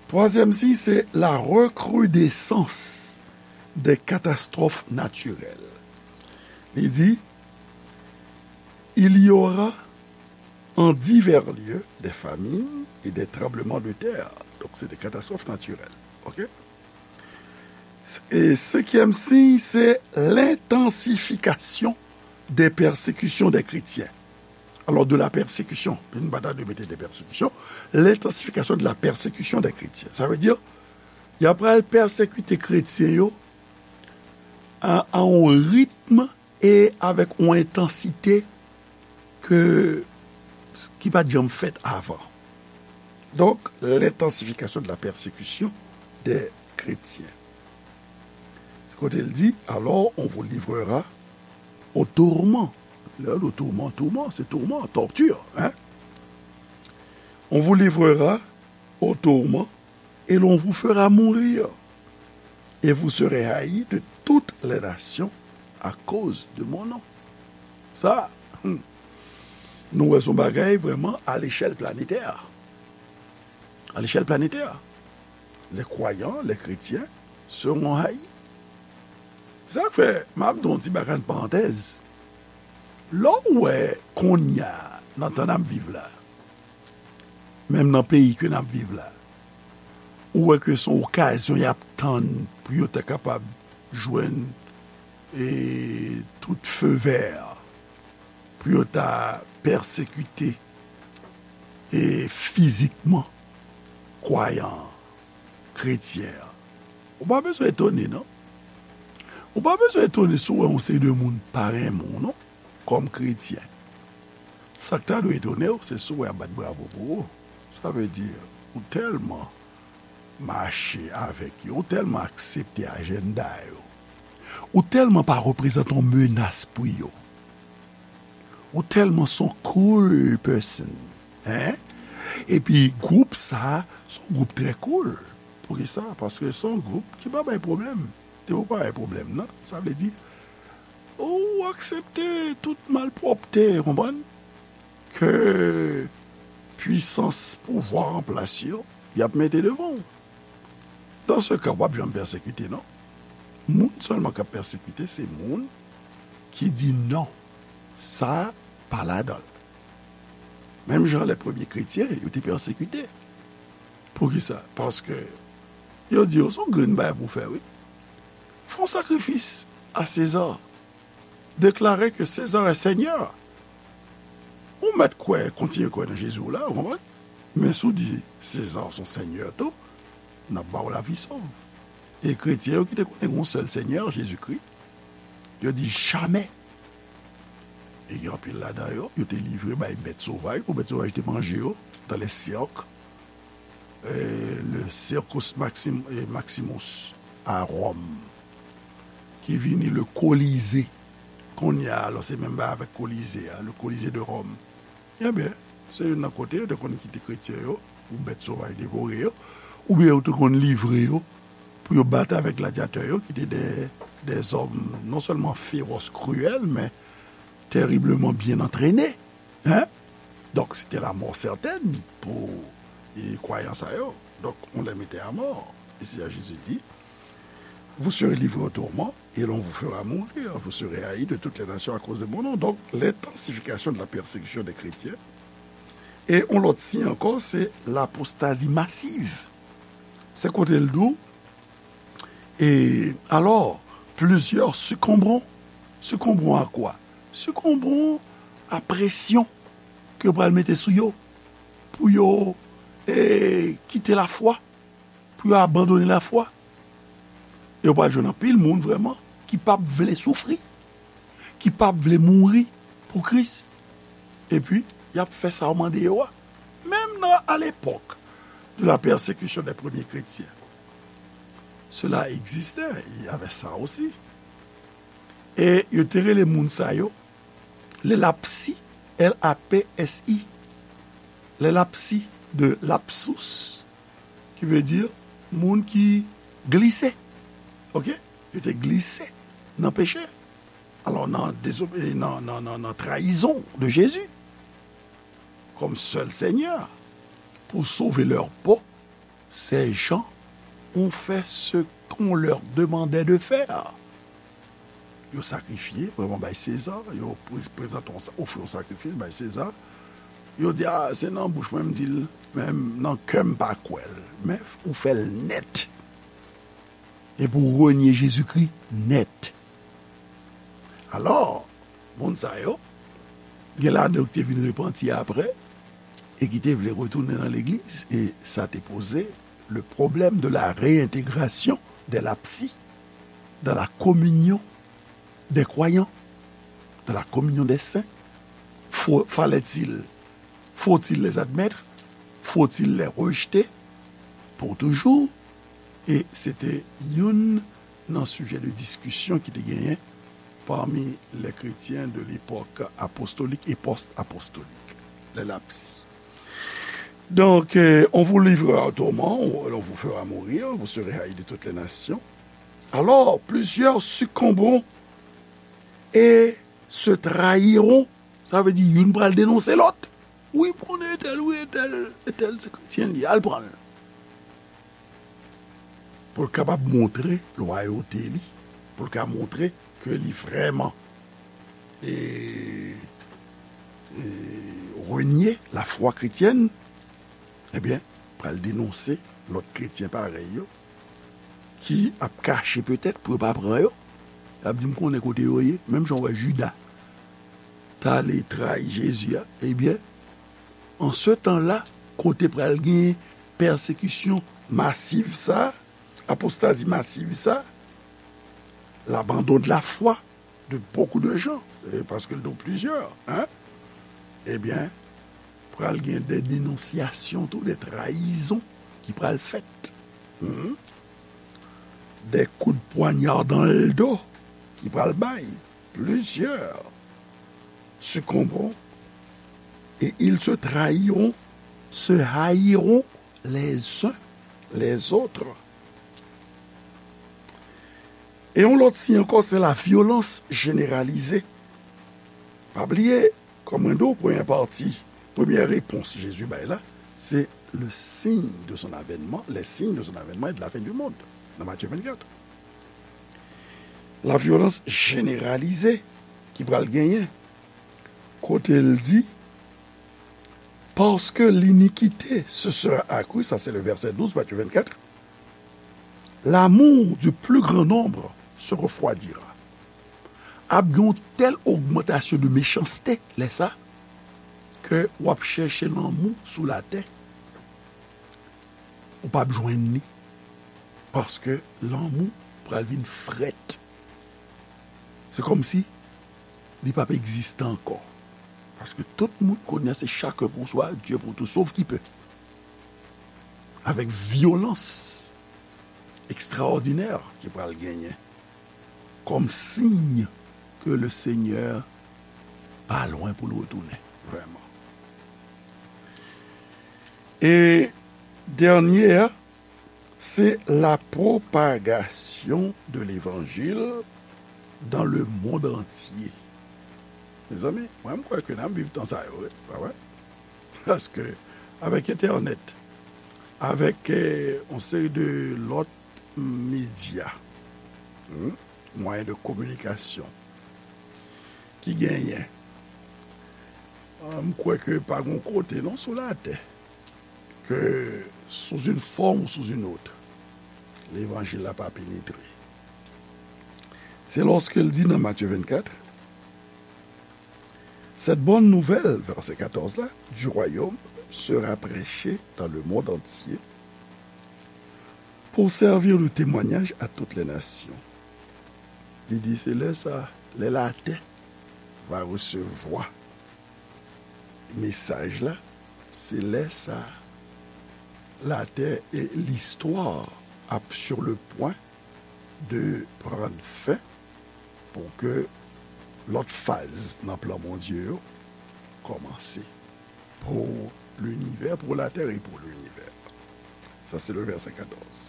Troisième signe, c'est la recrudescence des catastrophes naturelles. Il dit, il y aura en divers lieux des famines et des tremblements de terre. Donc, c'est des catastrophes naturelles. OK? E senkyèm siy, se l'intensification des persécutions des chrétiens. Alors, de la persécution, nou pa ta dwe mete des persécutions, l'intensification de la persécution des chrétiens. Sa vle di, y ap pral pèsekite kretyen yo a, a yon ritm e avèk yon entansite ke, ki pa t janm fèt avan. Donc, l'intensification de la persécution des chrétiens. Kote l di, alors on vous livrera au tourment. Lè yo di tourment, tourment, se tourment, torture, hein? On vous livrera au tourment et l'on vous fera mourir. Et vous serez haïs de toutes les nations à cause de mon nom. Sa, hmm, nou wè se yon bagay vrèman à l'échelle planétaire. À l'échelle planétaire. Les croyants, les chrétiens seront haïs. Sa k fè, m ap di yon ti bagay, yon parantèz. Lè w wè kounye a, nan tan n ap viv la, menm nan peyi ke n ap viv la, ou wè ke se yon okazyon y ap tann pou yo ta kapab jwenn, e, tout feu vert, pou yo ta pèsekite, e, fizikman kwayan an, kretyen an. Ou pa bezwen etone, non. Ou pa bezwen etone si w wè yon seri de moun pa renmen w, non, kòm kretyen. Sa k ta dwe etone w, se si w wè y ap bat bravo pou ou. Sa vle di, ou tèlman mache avèk yo, ou tèlman aksepte ajanda yo, ou tèlman pa reprezante yon menas pou yo, Ou tèlman s on cool person. Hein? Epi gwoup sa, s on gwoup trè cool. Poukisa? Paske s on gwoup ki pa bay pwoblèm. Depi w pa bay pwoblèm nan, sa vle di, ou aksepte tout malpwòpte, konprann? Ke pwisans pouvwa an plas yo, y ap mete devan w. Dan se ka, w p ap janm pèsekite, non. Moun sèlman k ap pèsekite, se moun ki di non. Sa pa ladan l. Menm jan lè premye kretyen, yo te pèsekite. Poukisa? Paske yo di yo s on grenn bagay pou w fè, wi. Fè yon sakrifis a Seza. Deklare ke Seza è Senyè. Ou mèt kwè, kontinye kwè nan Jezi w la, ou konprann? Men si w di Seza s on senyè tou, n ap ba w lavi sòv. E kretyen yo ki te konnen gen yon sèl Senyè, Jezikri, yo di jamè. E gen anpil ladan yo, yo te livre bay bèt sovaj, pou bèt sovaj te manje yo, dans les cirques, eh, le Circus Maxim-, eh, Maximus a Ròm, ki vini le Colisée. Kounye a, alò, se menm bagay avèk Colisée a, le Colisée de Rome. Ebyen, se youn nan kote yo te konn kite kretyen yo, pou bèt sovaj devore yo, oubyen yo te konn livre yo, pou yo bat avèk gladyatè yo, ki te de, de zòm non sèlman fewòs, kriyèl, men tèribleman byen antrene. Hein? Donk, se te lamò sètèn pou, e, kwayan sa yo. Donk, on les mettait à mort. E Seyè Jezi di, vous serez livrés au tourment et l'on vous fera mourir. Vous serez haïs de toutes les nations à cause de mon nom. Donc, l'intensification de la persécution des chrétiens. E yon lòt siy ankò, se l'apostasie massive. Se kote l di w, et alors, plusieurs succomberont. Succomberont à quoi? Succomberont à pression ke yo pral mete sou yo, pou yo, eh, kite lafwa, pou yo abandone lafwa. E w pral jwenn anpil moun vrèman ki p ap vle soufri, ki p ap vle mouri pou Kris. Epi, y ap fè sa w mande yo a. Menm nan, à l'époque de la persécution des premiers chrétiens, cela existait, il y avait ça aussi. E yo te rele moun sa yo, les lapsi, L A P S I, les lapsi de lapsus, ki vle di moun ki glise. Oke? Yo te glise nan peche. Alò, nan, désobé-, nan, nan, nan, nan trahison de Jésus comme seul Seigneur, pour sauver leur peau, ces gens ont fait ce qu'on leur demandait de faire. Yo sakrifye, vrèman, bay Seza, yo prez-, prezante yon sa-, ofri yon sakrifis bay Seza. Yo di, a, se nan bouch mwen m di l, men nan kè m pa kwè l. Men ou fè l nèt. Epi w renye Jezikri nèt. Alò, moun sa yo, gen ladan yo ki te vin repanti apre, e ki te vle retounen nan legliz, e sa te poze le problème de la réintégration des lapsi dans la communion des croyants, dans la communion des saints. Faut, fallait-il, faut-il les admettre? Faut-il les rejeter pour toujours? E se te youn nan sijè de diskisyon ki te genyen parmi les chrétiens de l'époque apostolique et post-apostolique, les lapsi. Donc, euh, on vous livrera au tourment, on, on vous fera mourir, vous serez haïs de toutes les nations. Alors, plusieurs succomberont et se trahiront. Sa vle di, youn pral denonse lòt. Wi, m konnen entèl, wi, entèl, entèl se kretyen li, al pran l. Pou l kapab montre lwayote li, pou l ka montre ke li vrèman, e, e, renye lafwa kretyèn, ebyen, pral denonse lòt kretyen parèy yo, ki ap kache petèt pou yo pa pran yo. Y ap di, "M konnen kote yo ye," menm jan w wè Jida t ale trayi Jezi a, ebyen, an se tan la, kote pral gen pèsekisyon masiv sa, apostazi masiv sa, l'abandon de la foi de beaucoup de gens, e paske l di w plizyè, hein, ebyen, pral gen de denonsyasyon tou, de trayizon ki pral fèt. Hmm. De kou de pwanya dan le do ki pral bay. Plizyè. succomberont et ils se trahiront, se haïront les uns les autres. E yon lòt siy ankò, se la vyolans jeneralize. Pa bliye, kòm mwen di w, premyè pati, premyè repons Jezi bay la, se le signe de son avènman, les signes de son avènement et de la fin du monde, nan Matye vennkat. La vyolans jeneralize ki pral genyen, kote l di, parce que l'iniquité se sera accrue, sa se le vèsè douz, Matye vennkat, l'amour du plus grand nombre se refroidira. Ap gen yon tèl ogmantasyon de mechanste lè sa, ke w ap chèche lanmou sou latè, ou p ap jwenn li, paske lanmou pral vin frèt. Se kòmsi li p ap egziste ankò. Paske tout moun kounye a se chacun pour soi, Dieu pour tous, sauf qui peut. Avèk vyolans ekstraòdinè ki pral genyen kòm siy ke le Senyè pa lwen pou l retounen, vrèman. E dènye a, se la propagation de l'évangile dans le monde entier. Mezanmi, mwen, m kwè ke n ap viv tan sa yo, wi, pa vre? Paske, avèk entènèt, avèk, eh, yon seri de lòt medya, hmm, mwayen de kominikasyon ki genyen, ah, m kwè ke pa gen kote, non, sou latè, ke sous une forme ou sous une autre, levanjil la pa penetre. Se lòske l di nan Matye vennkat, cette bonne nouvelle, vèsè katòz la, du royaume sera prêchée dans le monde entier pour servir de témoignage à toutes les nations. Li di, se lè sa, lè latè va resevwa mesaj la, se lè sa, latè e listwa ap sur le point de prendre fin pou ke lòt faz nan plan Bondye yo kòmanse pou linivè, pour la terre et pour l'univers. Sa se le vèsè katòz.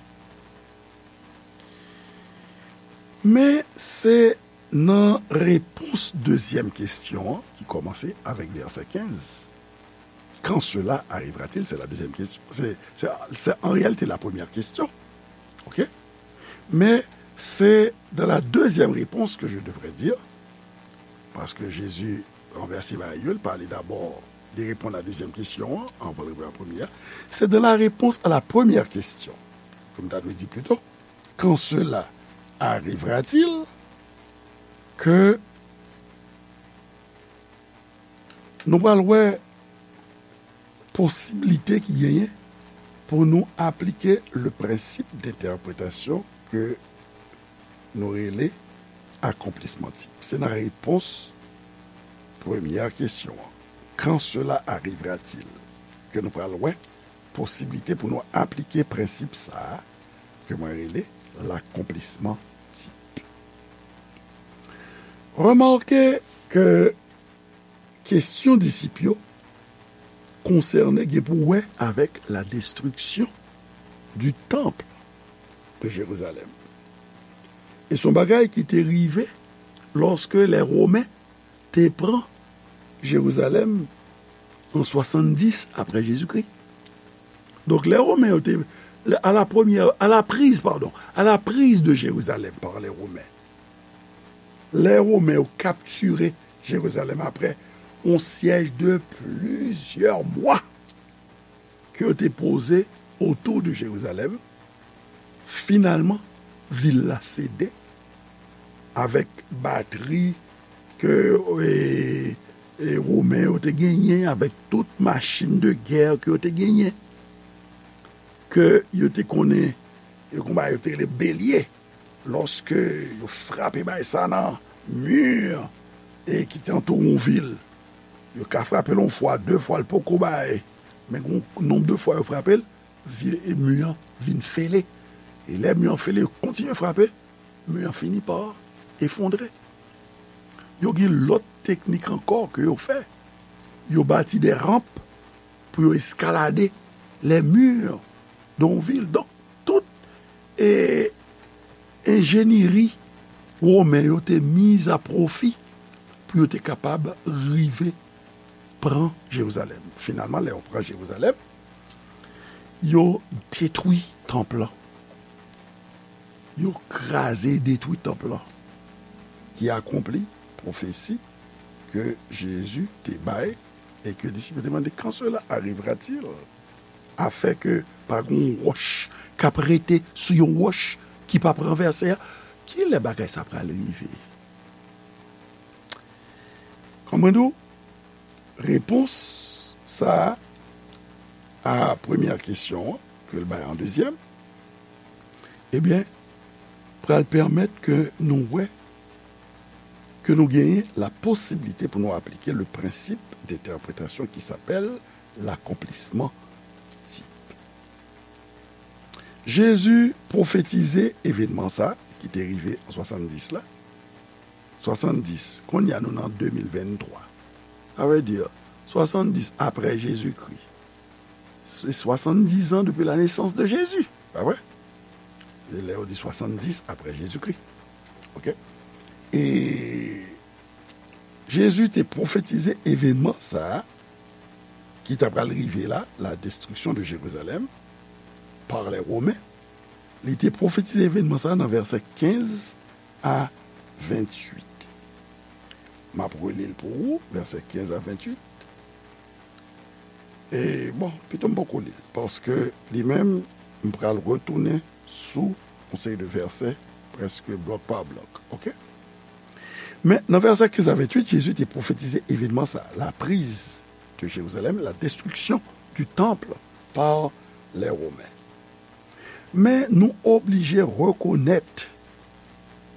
Men se nan repons dezyèm kesyon an, ki kòmanse avèk vèsè kenz. Quand cela arrivera-t-il? C'est la deuxième question. C'est, c'est, c'est en réalité la première question. OK? Mais c'est dans la deuxième réponse que je devrais dire, parce que Jésus renverse bagay yo, il parlait d'abord de répondre à la deuxième question, hein, avant de répondre à la première. C'est dans la réponse à la première question, ke m ta dwe di plito, quand cela arrivera-t-il, ke nou pral wè posiblite ki genyen pou nou aplike le prensip de entèpretasyon ke nou rele akonplisman tip. Se nan repons premyè kesyon an, quand cela arrivera-t-il, ke nou pral wè posiblite pou nou aplike prensip sa a ke mwen rele lakonplisman tip. Remake ke kesyon disip yo konsène, gen pou wè avèk la destruction du temple de Jérusalem. E se yon bagay ki te rive lòske lè Women te pran Jerizalèm an swasanndis apre Jezikri. Donk, lè Women yo te, à la première, à la prise, pardon, à la prise de Jérusalem par les Romains, lè Women yo kaptire Jerizalèm apre yon syèj de plizyè mwa ke yo te poze otou de Jerizalèm, finalman, vil la sede avèk batri ke, e, e, Women yo te genyen, avèk tout machin de gè ke yo te genyen, ke yo te konnen, yo konn ba yo te rele belye. Lòske yo frape bay sa nan mi, e, ki te antoure yon vil, yo ka frape l yon fwa, de fwa, l poko bay. Men gon nonb de fwa yo frape l, vil, e, mi an vin fele. E lè mi an fele, yo kontinye frape, mi an fini pa efondre. Yo gen lòt teknik ankò ke yo fè. Yo bati de ranp pou yo eskalade les murs de yon vil. Donk, tout e, enjenyeri women yo te miz a pwofi pou yo te kapab rive pran Jerizalèm. Finalman, lè yo pran Jerizalèm, yo detwi tanp lan. Yo kraze e detwi tanp lan, ki akonpli pwofesi ke Jezi te bay e ke disip yo te mande, quand cela arrivera-t-il? Afin ke pa gen yon wòch k ap rete sou yon wòch ki p ap ranvèse a. Kilè bagay sa pral rive? Kòman di w? Repons sa a, a premyè kesyon an, ke l bay an dezyèm, ebyen, pral pèmèt ke nou wè, ke nou genyen la posibilite pou nou aplike le principe d'interprétation qui s'appelle l'accomplissement type. Jezi pwofetize evènman sa ki te rive an swasanndis la. Swasanndis, kounye a nou nan de mil venntwa. Sa vle di, swasanndis apre Jezikri. Se swasanndis an depi la nesans de Jezi, pa vre? E lè yo di swasanndis apre Jezikri. Oke? E Jezi te pwofetize evènman sa a ki ta pral rive la, la destruction de Jérusalem par les Romains. Li te pwofetize evènman sa a nan vèsè kenz a venntuit. M ap reli l pou ou, vèsè kenz a venntuit. E, bon, pito m poko li l, paske li menm, m pral retounen sou yon seri de vèsè, prèske blòk pa blòk, oke? Men, nan vèsè kenz a venntuit, Jezi te pwofetize evènman sa, la prise de Jérusalem, la destruction du temple par les Romains. Men nou oblije rekonèt,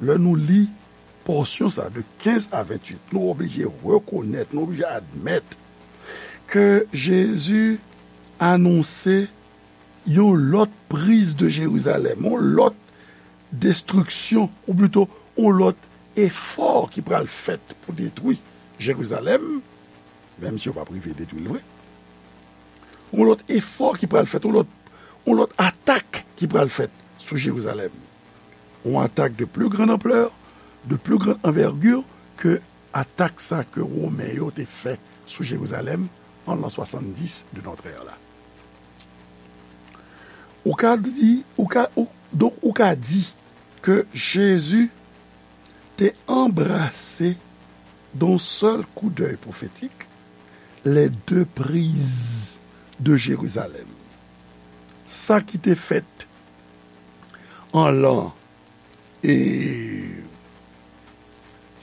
lè nou li pòsyon sa de kenz a venntuit, nou oblije rekonèt, nou oblije admèt ke Jezi anonse yon lòt priz de Jerizalèm, yon lòt destriksyon, ou plito, yon lòt efò ki pral fèt pou detwi Jerizalèm, menm si yo p ap rive detwi l vre. Yon lòt efò ki pral fèt, yon lòt, yon lòt atak ki pral fèt sou Jerizalèm. Yon atak de plus grande ampleur, de plus grande envergure ke atak sa ke Women yo te fè sou Jerizalèm an l'an swasanndis de notre ère la. Ou ka di, ou ka, ou, donk ou ka di ke Jezi te anbrase d'un seul coup d'œil prophétique les deux prises de Jérusalem. Sa ki te fèt an l'an, e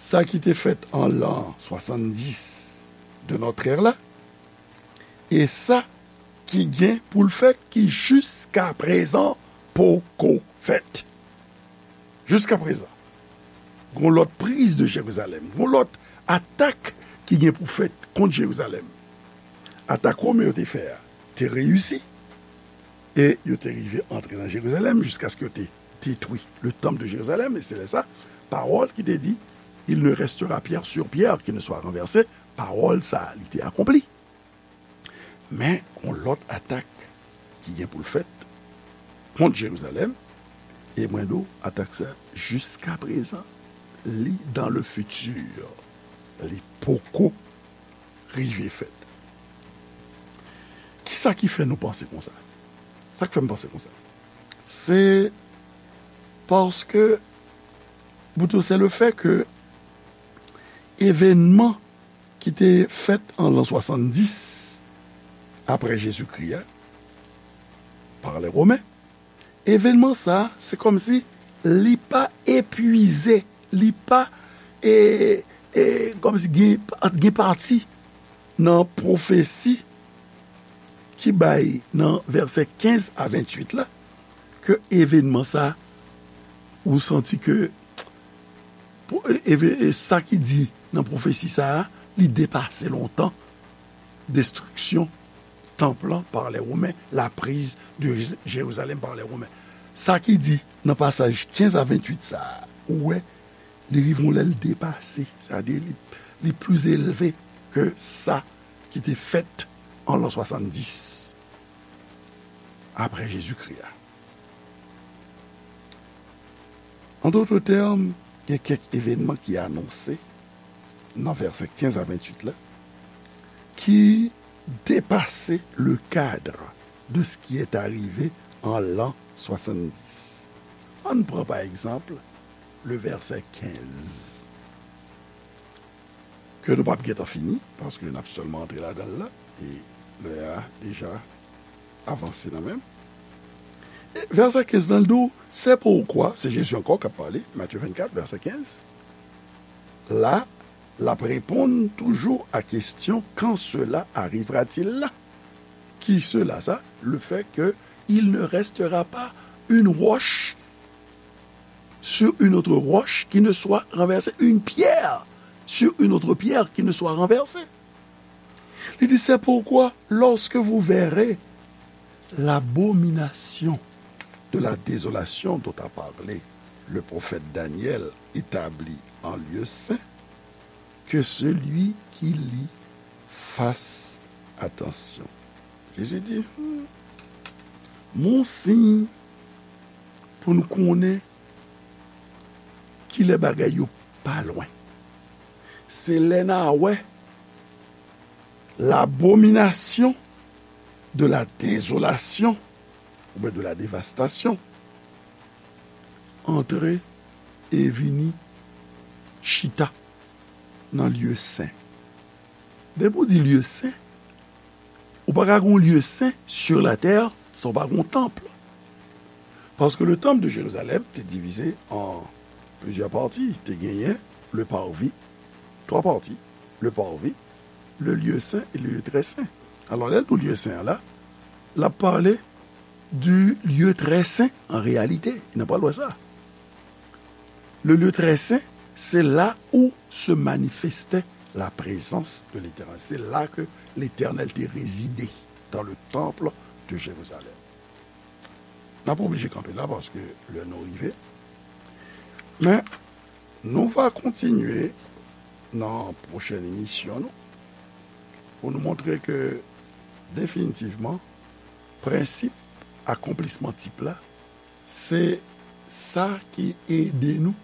sa ki te fèt an l'an swasanndis de notre ère la, e sa ki gen pou l fèt, ki jiskaprezan poko fèt. Jiskaprezan, gon lòt priz de Jerizalèm, gon lòt atak ki gen pou fèt kont Jerizalèm. Atak Women yo te fè a te reyisi, e yo te rive antre nan Jerizalèm jiskaske yo te detwi le temple de Jérusalem, e se lè sa, pawòl ki te di, il ne restera pierre sur pierre qui ne soit renversée, pawòl sa a, li te akonpli. Men, gon lòt atak ki gen pou l fèt kont Jerizalèm, e mwen di w, atak sa, jiskaprezan, li dans le futur. Li poko rive fèt. Kisa ki fè nou panse konsa? Sa k fè m panse konsa? Se paske, plito, se le fè ke evènman ki te fèt an l'an swasanndis apre Jezikri a, par les Romains, evènman sa a, se kòmsi li pa epwize, li pa, e, e, kòmsi gen, gen pati nan pwofesi ki bay nan vèsè kenz a venntuit la, ke evènman sa, ou santi ke, pou, e, e, e sa ki di nan pwofesi sa a, li depase lontan destriksyon tanp lan par les Romains, la prise de Jé-, Jérusalem par les Romains. Sa ki di nan pasaj kenz a venntuit sa a, ou wè, Li rive yon lè l depase, sètadi li, li pli elve ke sa ki te fèt an lan swasanndis apre Jezikri a. An dòt tèm, gen kèk evènman ki anonse nan vèsè kenz a venntuit la, ki depase le cadre de ce qui est arrivé en l'an soixante-dix. Ann pran, pa egzanp, le vèsè kenz, ke nou p ap gentan fini, paske n ap sèlman antre ladan l la, e lè a deja avanse nan menm. E vèsè kenz lan, l di w, c'est pourquoi, se Jezi ankò k ap pale, Matye vennkat, vèsè kenz. La, l ap reponn toujou a kesyon, quand cela arrivera-t-il là? Ki cela sa? Le fait que il ne restera pas une roche sur une autre roche qui ne soit renversée, une pierre sur une autre pierre qui ne soit renversée. Li di, c'est pourquoi, lorsque vous verrez l'abomination de la désolation dont a parlé le prophète Daniel établie en lieu saint, que celui qui lit fasse attention. Jezi di, hmm, mon siy pou n konnen kilè bagay yo pa lwen. Se lè n a wè l'abomination de la désolation, oubyen de la dévastation, antre e vini chita nan lye sen. Depi w di lye sen, ou pa ka gon lye sen sur la terre san w pa gon tanp. Paske le temple de Jérusalem te divize an plizyè pati. Te genyen le parvis, twa pati, le parvis, le lieu saint et le lieu très saint. Alò, lè l di lye sen an la, l ap pale du lieu très saint en réalité. N ap pral wè sa. Le lieu très saint, c'est là où se manifestait la présence de l'Éternel. C'est là que l'Éternel te résidait, dans le temple de Jérusalem. N ap oblije kanpe la paske lè nou rive. Men, nou va kontinye nan pwochèn emisyon nou pou nou montre ke definitivman prensip akonplisman tip la, se sa ki ede nou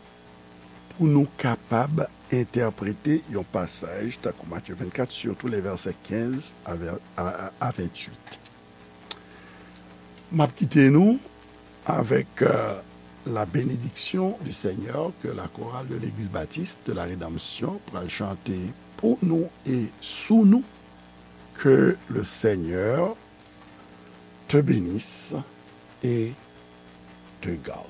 pou nou kapab entèprete yon pasaj tankou Matye vennkat, sitou lè vèsè kenz a vè-, a, a, a venntuit. M ap kite nou avec, euh, la bénédiction du Seigneur que la chorale de l'Église Baptiste de la Rédemption pral chante pou nou e sou nou. Que le Seigneur te bénisse et te garde.